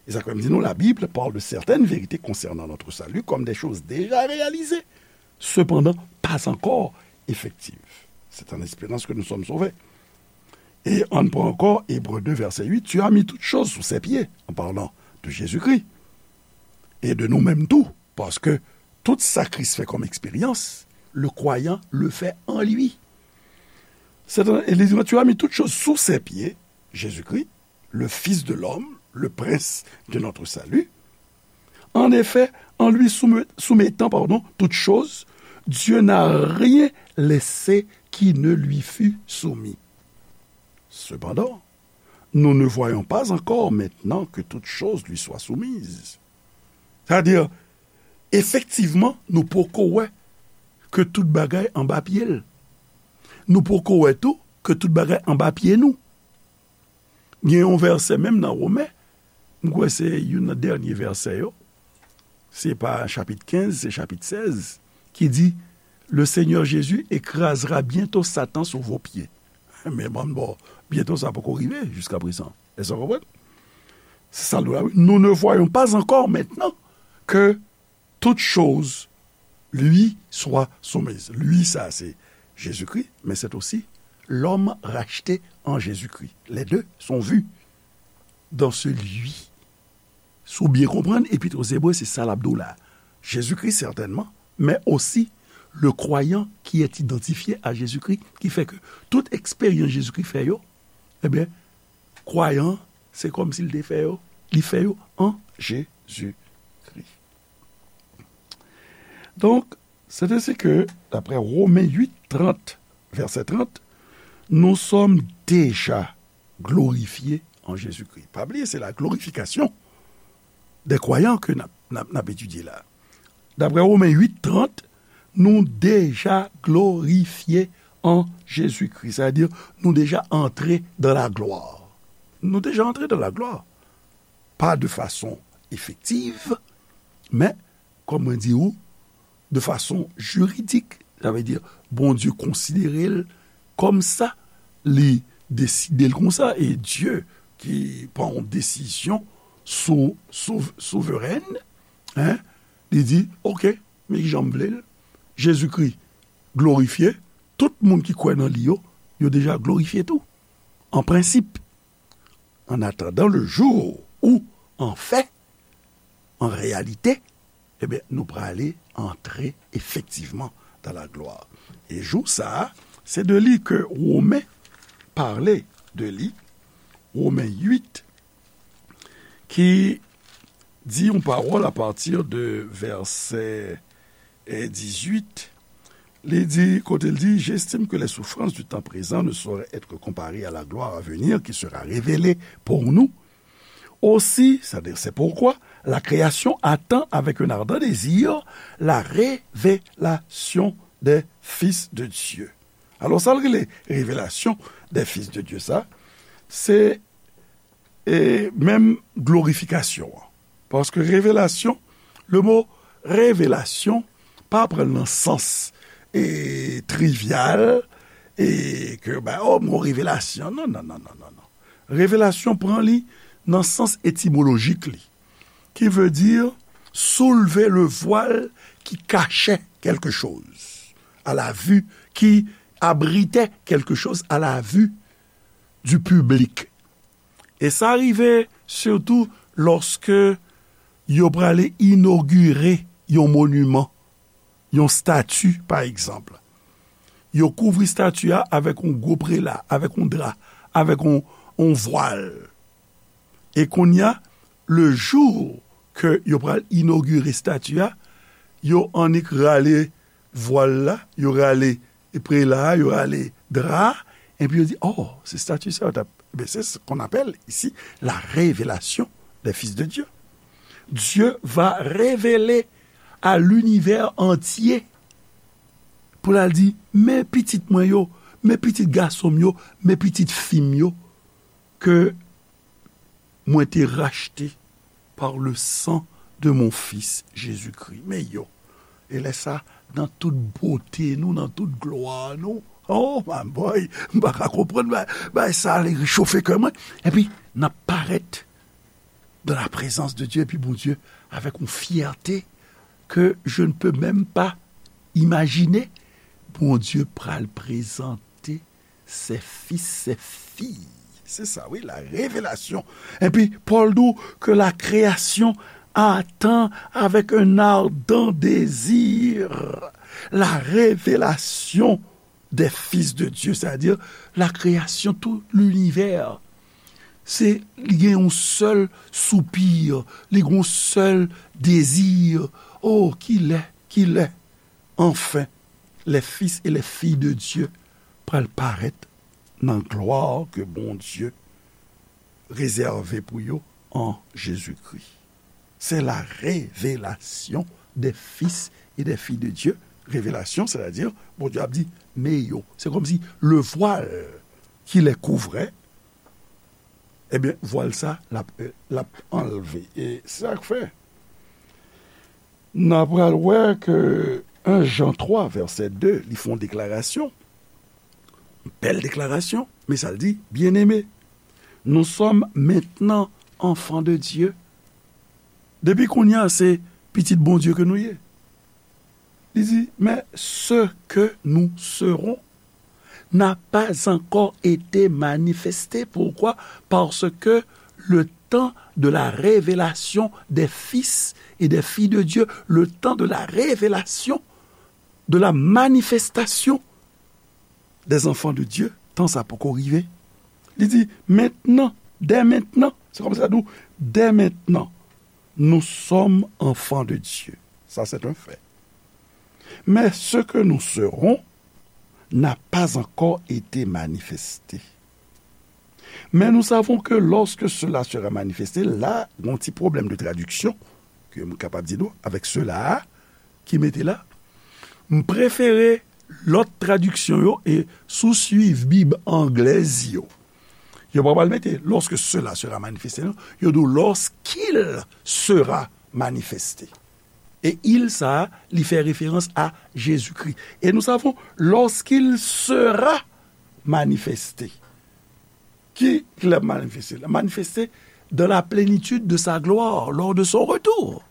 E sa k fè m di nou, la Bible parle de certaines vérités concernant notre salut comme des choses déjà réalisées, cependant pas encore effective. C'est en espérant que nous sommes sauvés. Et on prend encore Hébreux deux, verset huit, tu as mis toutes choses sous ses pieds, en parlant de Jésus-Christ. Et de nous-mêmes tout, parce que tout ça Christ fait comme expérience, le croyant le fait en lui. C'est un, et les, tu as mis toutes choses sous ses pieds, Jésus-Christ, le Fils de l'homme, le prince de notre salut. En effet, en lui soumet- soumettant, pardon, toutes choses, Dieu n'a rien laissé qui ne lui fût soumis. Cependant, nous ne voyons pas encore maintenant que toutes choses lui soient soumises. Sa vle di, efektivman, nou poko wè ke tout bagay anba pye l. Nou poko wè tou ke tout bagay anba pye nou. Gen yon vèsè menm nan Women, m kwè se youn nan dènye vèsè yo, se pa chapit kenz, se chapit sèz, ki di, le Seigneur Jésus écrasera bientôt Satan sous vos pieds. Men banm bò, byento sa poko rive jiskaprezan. Èske w konprann? Se sa l di la, wi. Nous ne voyons pas encore maintenant que toutes choses lui soient soumises. Lui, ça, c'est Jésus-Christ, mais c'est aussi l'homme racheté en Jésus-Christ. Les deux sont vus dans ce lui. Si w byen konprann, Epit aux Hébreux, se sa l ap di w la. Jésus-Christ, certainement, mais aussi le croyant qui est identifié à Jésus-Christ, ki fè ke tout eksperyans Jezikri fè yo, ebyen, kwayan, se kòmsi l te fè yo, li fè yo an Jezikri. Donk, c'est ainsi que, d'après Romains huit, trente, verset trente, nous sommes déjà glorifiés en Jésus-Christ. Pa bliye, se la glorification des croyants ke n ap, n ap, n ap etidye la. D'après Romains huit, trente, nou deja glorifye an Jezikri. Sa vle di, nou deja antre dans la gloire. Nou deja antre dans la gloire. Pas de façon effective, men, kòm mwen di w, de façon juridique. Sa vle di, Bondye konsidere l kòm sa, li deside l konsa, e Dye ki pran yon desizyon sou, sou, souverèn, hein, li di, oke, men kijan m vle l, Jezikri glorifye, tout moun ki kwè nan li yo, yo deja glorifye tou, an prensip. En attendant le jour où, en fait, en réalité, ebyen, nou prale antre efektivman dans la gloire. E jou sa a, se de li ke Women pale de li, Women uit, ki di yon pawòl a pati de vèsè, eh, dizuit. Li di, kote l di, j'estime que les souffrances du temps présent ne sauraient être comparées à la gloire à venir qui sera révélée pour nous. Aussi, c'est-à-dire, c'est pourquoi la création attend avec un ardent désir la révélation des fils de Dieu. Alò, sa l rele révélation des fils de Dieu, sa, se, e, menm glorifikasyon an. Paske revelasyon, le mo revelasyon, pa pran l nan sans, e, trivyal, e ke, ben, oh, m gon revelasyon. Non, non, non, non, non, non. Revelasyon pran li nan sans etimolojik li, qui veut dire soulever le voile qui cachait quelque chose à la vue, qui abritait quelque chose à la vue du public. E sa rive sitou lòske yo prale inogire yon moniman, yon stati, pa egzanp. Yo kouvri stati a avèk yon gwo prela, avèk yon dra, avèk yon, yon vwal. E kounye a, le jou ke yo pral inogire stati a, yo annik rale vwal la, yo rale prela a, yo rale dra a, epi yo di, oh, se stati sa yo t ap. Ebyen, c'est ce qu'on appelle ici la révélation des fils de Dieu. Dieu va révéler à l'univers entier pou l al di, men pitit mwen yo, men pitit gason m yo, men pitit fi m yo, ke mwen te rachte par le sang de mon fils Jésus-Christ. Men yo, e lè sa, nan tout bote nou, nan tout glwa nou, oh my boy, m pa ka konprann, bay, bay sa li rechofe kè mwen. Epi, n ap parèt dans la présence de Dieu, epi Bondye, avec une fierté que je ne peux même pas imajine, Bondye pral prezante ses fils, ses filles. Se sa, wi, la révélation. Epi, Pòl di w que la création attend avec un ardent désir la révélation des fils de Dieu, c'est-à-dire la création, tout l'univers. Se, li gen yon sèl soupi, li gen yon sèl dezi. Oh, kilè, kilè, anfen, les fils et les filles de Dieu pral parèt nan glwa ke Bondye rezève pou yo an Jezikri. C'est la révélation des fils et des filles de Dieu. Révélation, c'est-à-dire, Bondye ap di, men yo. Se kòmsi le voile qui les couvrait, ebyen, vwal sa, l ap, l ap anlve. E se sa k fè, n a pral wè ke en Jan twa, vèsè de, li fè yon deklarasyon. Bèl deklarasyon, men sa l di, bien-aimés, nous sommes maintenant enfants de Dieu. Depi kounye a, se pitit Bondye ke nou ye. Li di, mais ce que nous serons n'a pas encore été manifesté. Pourquoi? Parce que le temps de la révélation des fils et des filles de Dieu, le temps de la révélation, de la manifestation des enfants de Dieu, tan sa poko rive. Li di, maintenant, dès maintenant, se kòmsi sa di w, dès maintenant, nous sommes enfants de Dieu. Ça, c'est un fait. Mais ce que nous serons n'a pas encore été manifesté. Mais nous savons que lorsque cela sera manifesté, la, gen yon ti pwoblèm de tradiksyon, ke m kapab di nou, avèk cela a, ki mete la, m prefere lòt tradiksyon yo, e si w swiv Bib anglèz yo, yo pa pral mete lorsque cela sera manifesté, non, yo di w lorsqu'il sera manifesté. E il sa a, li fè referans a Jezikri. Et nous savons, lorsqu'il sera manifesté. Ki, ki l ap manifeste? L ap manifeste dans la plénitude de sa gloire, lors de son retour.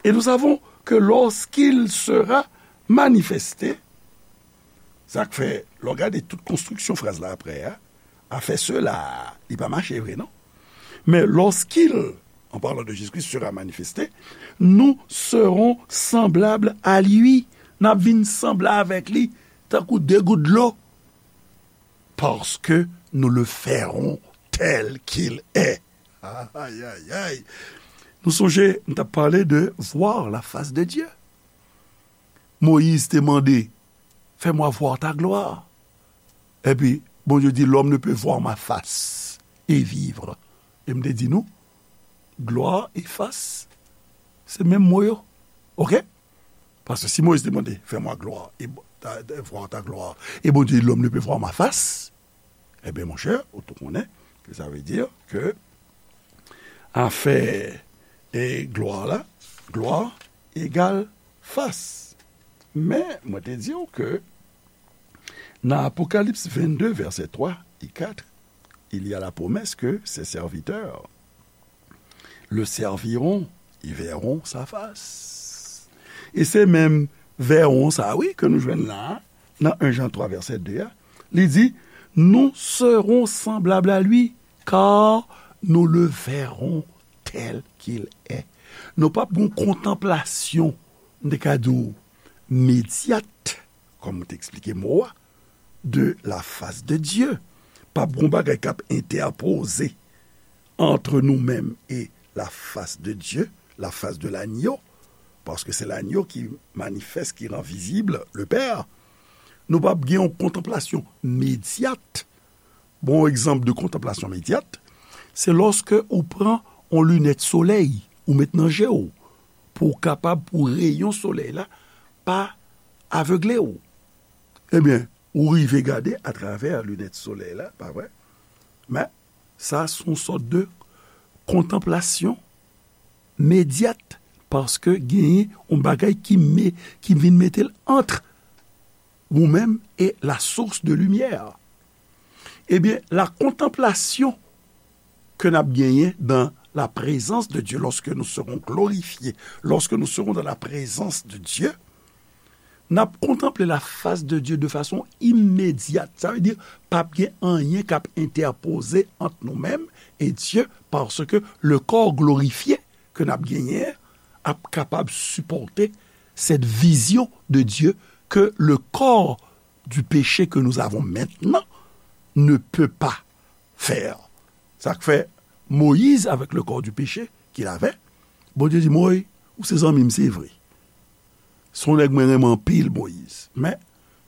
Et nous savons que lorsqu'il sera manifesté, sa k fè, lè w gade tout konstriksyon fraz la apre a, afè cela, li pa mache vre, non? Mais lorsqu'il, en parlant de Jésus-Christ, sera manifesté, nous serons semblables à lui. N ap vin sanble avèk li, tankou de gout dlo. Parce que nous le verrons tel qu'il est. Ay, ay, ay. Nou sonje, m t ap pale de voir la face de Dieu. Moyiz te mande, fais-moi voir ta gloire. Epi, Bondye di, l'homme ne peut voir ma face et vivre. E m te di nou, gloire et face, se menm mo yo. Oke? Paske si Moyiz te mande, fais-moi gloire, et ta, ta, voir ta gloire, e Bondye di, l'homme ne peut voir ma face, ebyen, monchè, ou tou konnen ke sa vle di ke afè e glwa la, glwa egal fas. Men, mwen te di w ke nan Apokalips vennde, vèsè twa e kat, il y a la promesse que ses serviteurs le serviront, ils verront sa face. E se menm verront sa, wi, ke nou jwenn la, nan en Jan twa, vèsè de a. Li di, nous serons semblables à lui, car nous le verrons tel qu'il est. Nou p ap gen yon kontanplasyon, m te ka di w, medyat, kòm m te eksplike mo a, de la face de Dieu. P ap gen yon bagay k ap entèpoze entre nous-mêmes et la face de Dieu, la face de l'agneau, paske se l'agneau ki manifeste, ki rend visible le Père. Nou p ap gen yon kontanplasyon medyat. Bon, egzanp de kontanplasyon medyat, se lòske ou pran yon linèt solèy, ou met nan je w, pou w kapab, pou reyon solèy la pa avegle w. Ebyen, ou rive gade atravè linèt solèy la, pa vre? Men, sa se yon sòt de kontanplasyon medyat, paske genyen yon bagay ki me-, ki vin mete l ant ou menm e la source de lumière. Ebyen, la kontanplasyon ke n ap genyen dans la présence de Dieu, lorsque nous serons glorifiés, lorsque nous serons dans la présence de Dieu, n ap kontanple la fas de Dye de fason imedyat. Sa vle di, p ap gen anyen k ap entèpoze ant nou menm e Dye, paske le corps glorifié ke n ap genyen an ap kapab sipòte cette vision de Dieu que le corps du péché que nous avons maintenant ne peut pas faire. Sa k fè Moyiz, avec le corps du péché qu'il avait, Bondye di, Moyiz, ou se zanmi m, se vre. Se yon nèg mwen renmen anpil, Moyiz. Men,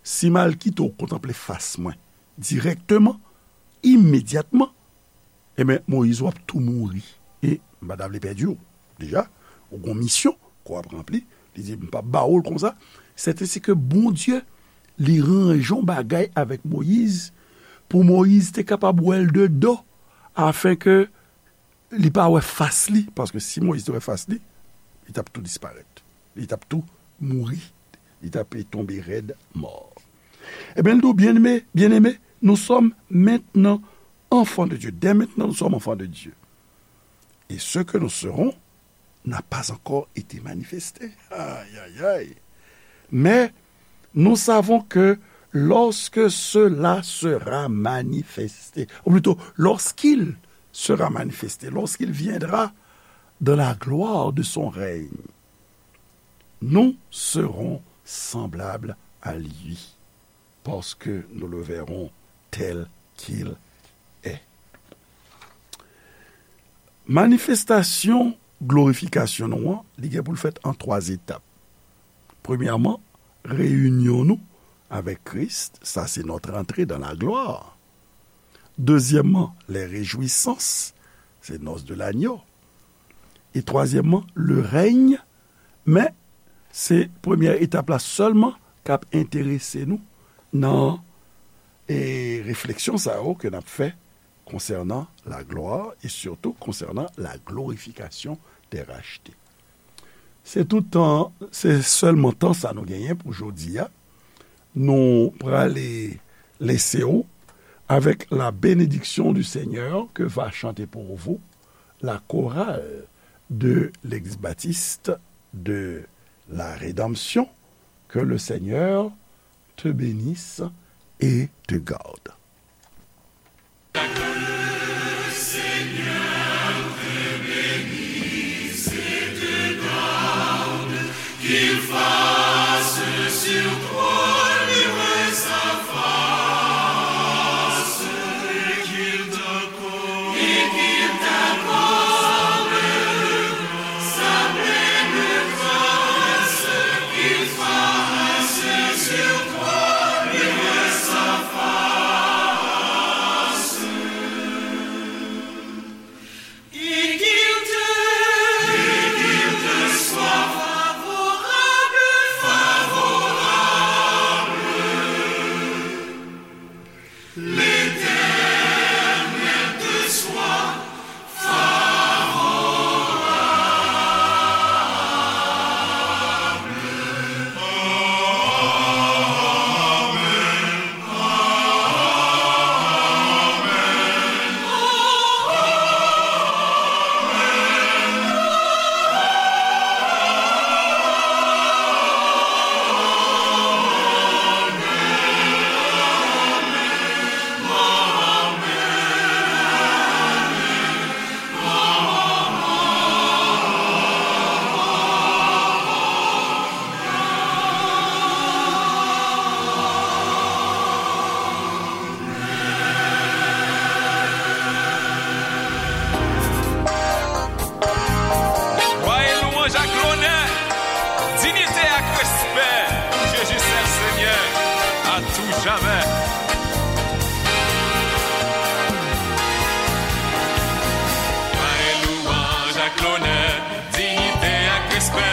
si m al kite w kontanple fas mwen dirèkteman, imedyatman, ebyen, Moyiz, w ap tou mouri. E m pa ta vle pèdi w. Deja, ou gon misyon ke w ap ranpli. Li di, m p ap ba w l konsa. Sètensike Bondye, li ranje yon bagay avèk Moyiz, pou Moyiz te kapab wè l de do, afenke li pa wè fas li, paske si Moyiz te wè fas li, li t ap tou disparèt. Li t ap tou mouri. Li t ap tonbe rèd mò. Ebyen, l di w, byeneme, byeneme, nous sommes maintenant enfants de Dieu. Dès maintenant, nous sommes enfants de Dieu. Et ce que nous serons n'a pas encore été manifesté. Aïe, aïe, aïe. Mais nous savons que lorsque cela sera manifesté, ou plutôt, lorsqu'il sera manifesté, lorsqu'il viendra dans la gloire de son règne, nous serons semblables à lui, parce que nous le verrons tel qu'il est. Manifestasyon glorifikasyon nou an, li gen pou l fèt an twa etap. Premyèman, reyinyon nou avèk Kris, sa se notre entrée dans la gloire. Dezyèmman, les réjouissances, se noces de l'agneau. E twazyèmman, le règne, men se premyè etap la sèlman k ap enterese nou nan, e, refleksyon sa yo ke n ap fè konsènan la gloire et surtout konsènan la glorification des rachetés. Se tout tan, se sèlman tan sa nou genyen pou jodi a. Nou prale lese w avec la bénédiction du Seigneur que va chanter pour vous la chorale de l'Église baptiste de la Rédemption. Que le Seigneur te bénisse et te garde. Glwa e lwanj ak lonè, diyite ak respè pou Jezi sèl Senyè, a tou jamè. Glwa e lwanj ak lonè, diyite ak respè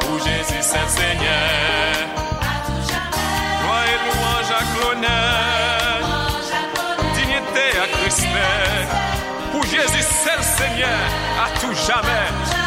pou Jezi sèl Senyè. Glwa e lwanj ak lonè, diyite ak respè pou Jezi sèl Senyè, a tou jamè.